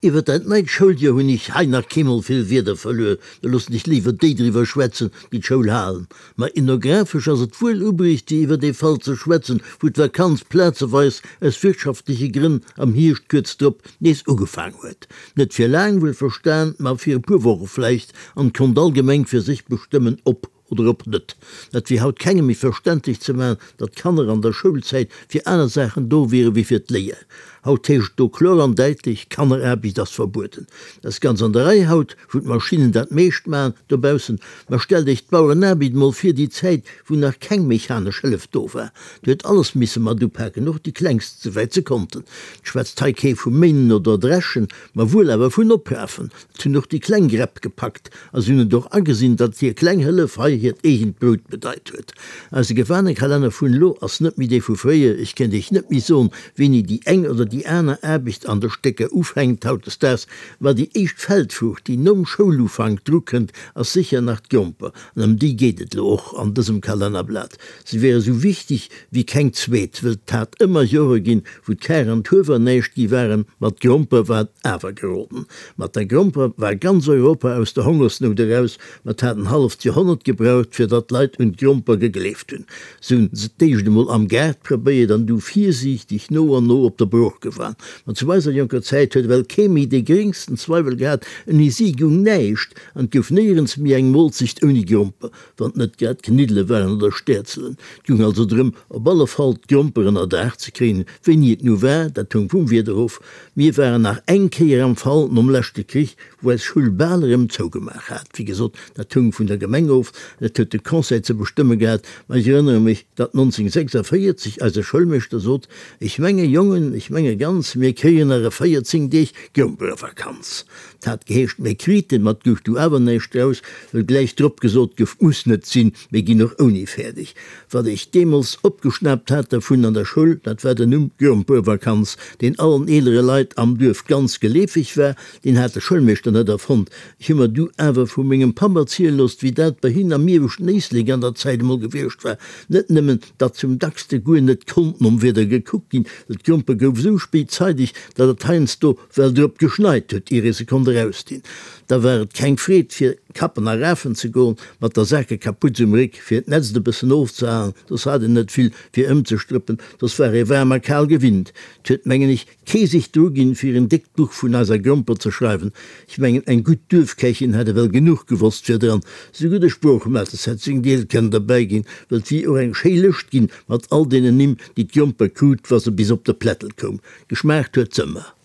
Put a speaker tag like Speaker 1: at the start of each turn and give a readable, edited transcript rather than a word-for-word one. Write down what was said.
Speaker 1: Iwwer dat neit Schouljoer hunn ech hei nach keemol vill Wierder verluer, da loossen ech léiwer déi driwwer schwätzen, déi d'Schoul halen. Ma ethnographesch ass et wuel ubruecht, fir iwwer dee Fall ze schwätzen, wou d'Vakanz plazeweis aus wirtschaftleche Grënn am Hierscht kuerz drop nees ugefaang huet. Net fir laang, wuel verstan, ma fir e puer Woche vläicht, an konnt all Gemeng fir sech bestëmmen, ob Oder ob net. Dat wier haut kengem méi verständlech ze maachen, datt d'Kanner an der Schoulzäit fir aner Saachen do wiere wéi fir d'Léier. Haut heescht et do kloer an däitlech, Kanneraarbecht ass verbueden. Dat ass ganz an der Rei haut, wou d'Maschinnen dat meescht maachen dobaussen. Ma stellt Iech d'Bauerenaarbecht emol vir, déi Zäit, wou nach keng mechanesch Hëllef do war. Do huet alles misse mat upaken, och déi Klengst, souwäit se konnten. Et schwätzt hei kee vu Méinen oder Dreschen, ma wuel awer vun Oprafen. Et hunn och déi kleng Gräpp gepackt a si hunn et och agesinn, datt hir kleng Hëllef hei hiert eegent Brout bedeit huet. Eise Gewanekalender vun elo ass net méi dee vu fréier. Ech kéint Iech net méi soen, wéini déi eng oder déi aner Aarbecht an de Stécker ufänkt hautdesdaags, ma déi éischt Feldfruucht, déi nom Schoulufank drukënnt, ass sécher nach d'Gromper. An ëm déi geet et elo och an dësem Kalennerblat. Se wier esou wichteg wéi keng zweet, wëll 't hat ëmmer Jore ginn, wou d'Kar an d'Huewer näischt gi waren, ma d'Gromper war awer geroden. Mat der Gromper war ganz Europa aus der Hongersnout eraus, ma 't hat en halleft Joerhonnert gebraucht, fir datt d'Leit un d'Gromper gegleeft hunn. Se hunn se d'éischt emol am Gaart probéiert an du virsiichteg no an no op der Brooch gewan. Ma zu eiser jonker Zäit huet ewell kee méi dee geréngsten Zweiwel gehat, ouni si goung näischt an 't gouf néierens méi eng Molzecht ouni Gromper. wann 't net grad Kniddele waren oder Stäerzelen. 't goung also drëm, op alle Fall d'Gromper ënner Daach ze kréien. Wéini et nu war, dat houng vum Wieder of. Mir waren nach eng Kéier am Fall nom leschte Krich, wou eis Schull bal erëm zougemaach hat. Wéi gesot, dat houng vun der Gemeng of, dat huet de Conseil ze bestëmme gehat. Ma ech erënnere mech, datt 1946 eise Schoulmeeschter sot, Ech menge Jongen, ech menge ganz, mir kréien nach e 14 Deeg Gromperevakanz. 't hat geheescht, mir kriten, ma 't gouf du awer näischt draus, wëll gläich drop gesot gouf, 't muss net sinn, mir ginn och ouni fäerdeg. Wat ech deemools opgeschnaapt hat dervun an der Schoul, dat war den Numm Grompervakanz, deen allen eelere Leit am Duerf ganz geleefeg war. Deen hat de Schoulmeeschter net erfonnt. Ech hu mer du awer vu mengem Papp erziele loosst, wéi dat bei hinn am ieweschten Éislek an der Zäit emol gewiescht war. Net nëmmen, datt zum dackste guer net konnt nom Wieder gekuckt ginn, well d'Gromper gouf esou spéit zeideg, datt et heiansdo Well drop geschneit huet, ier ee se konnt erausdinn. Da war et keng Freed, fir kappen a rafen ze goen, mat der Sakekaputz um Réck, fir d'Nätzt e bëssen ofzehalen, soss hat een net vill, fir ëmzestrëppen, soss war ee waarm a kal gewinnt. 't huet, mengen ech, kee sech druginn, fir en déckt Buch vun eiser Gromper ze schreiwen. Ech mengen, eng gutt Duerfkächin hätt ewell genuch gewosst fir dran. Souguer de Sproochmates hätt seng Deel kënnen derbäi ginn, well 't wier och eng schéi Lëscht ginn, mat all deenen Nimm, déi d'Gromper krut, wa se bis op de Plättel koum. Geschmaacht huet s'ëmmer.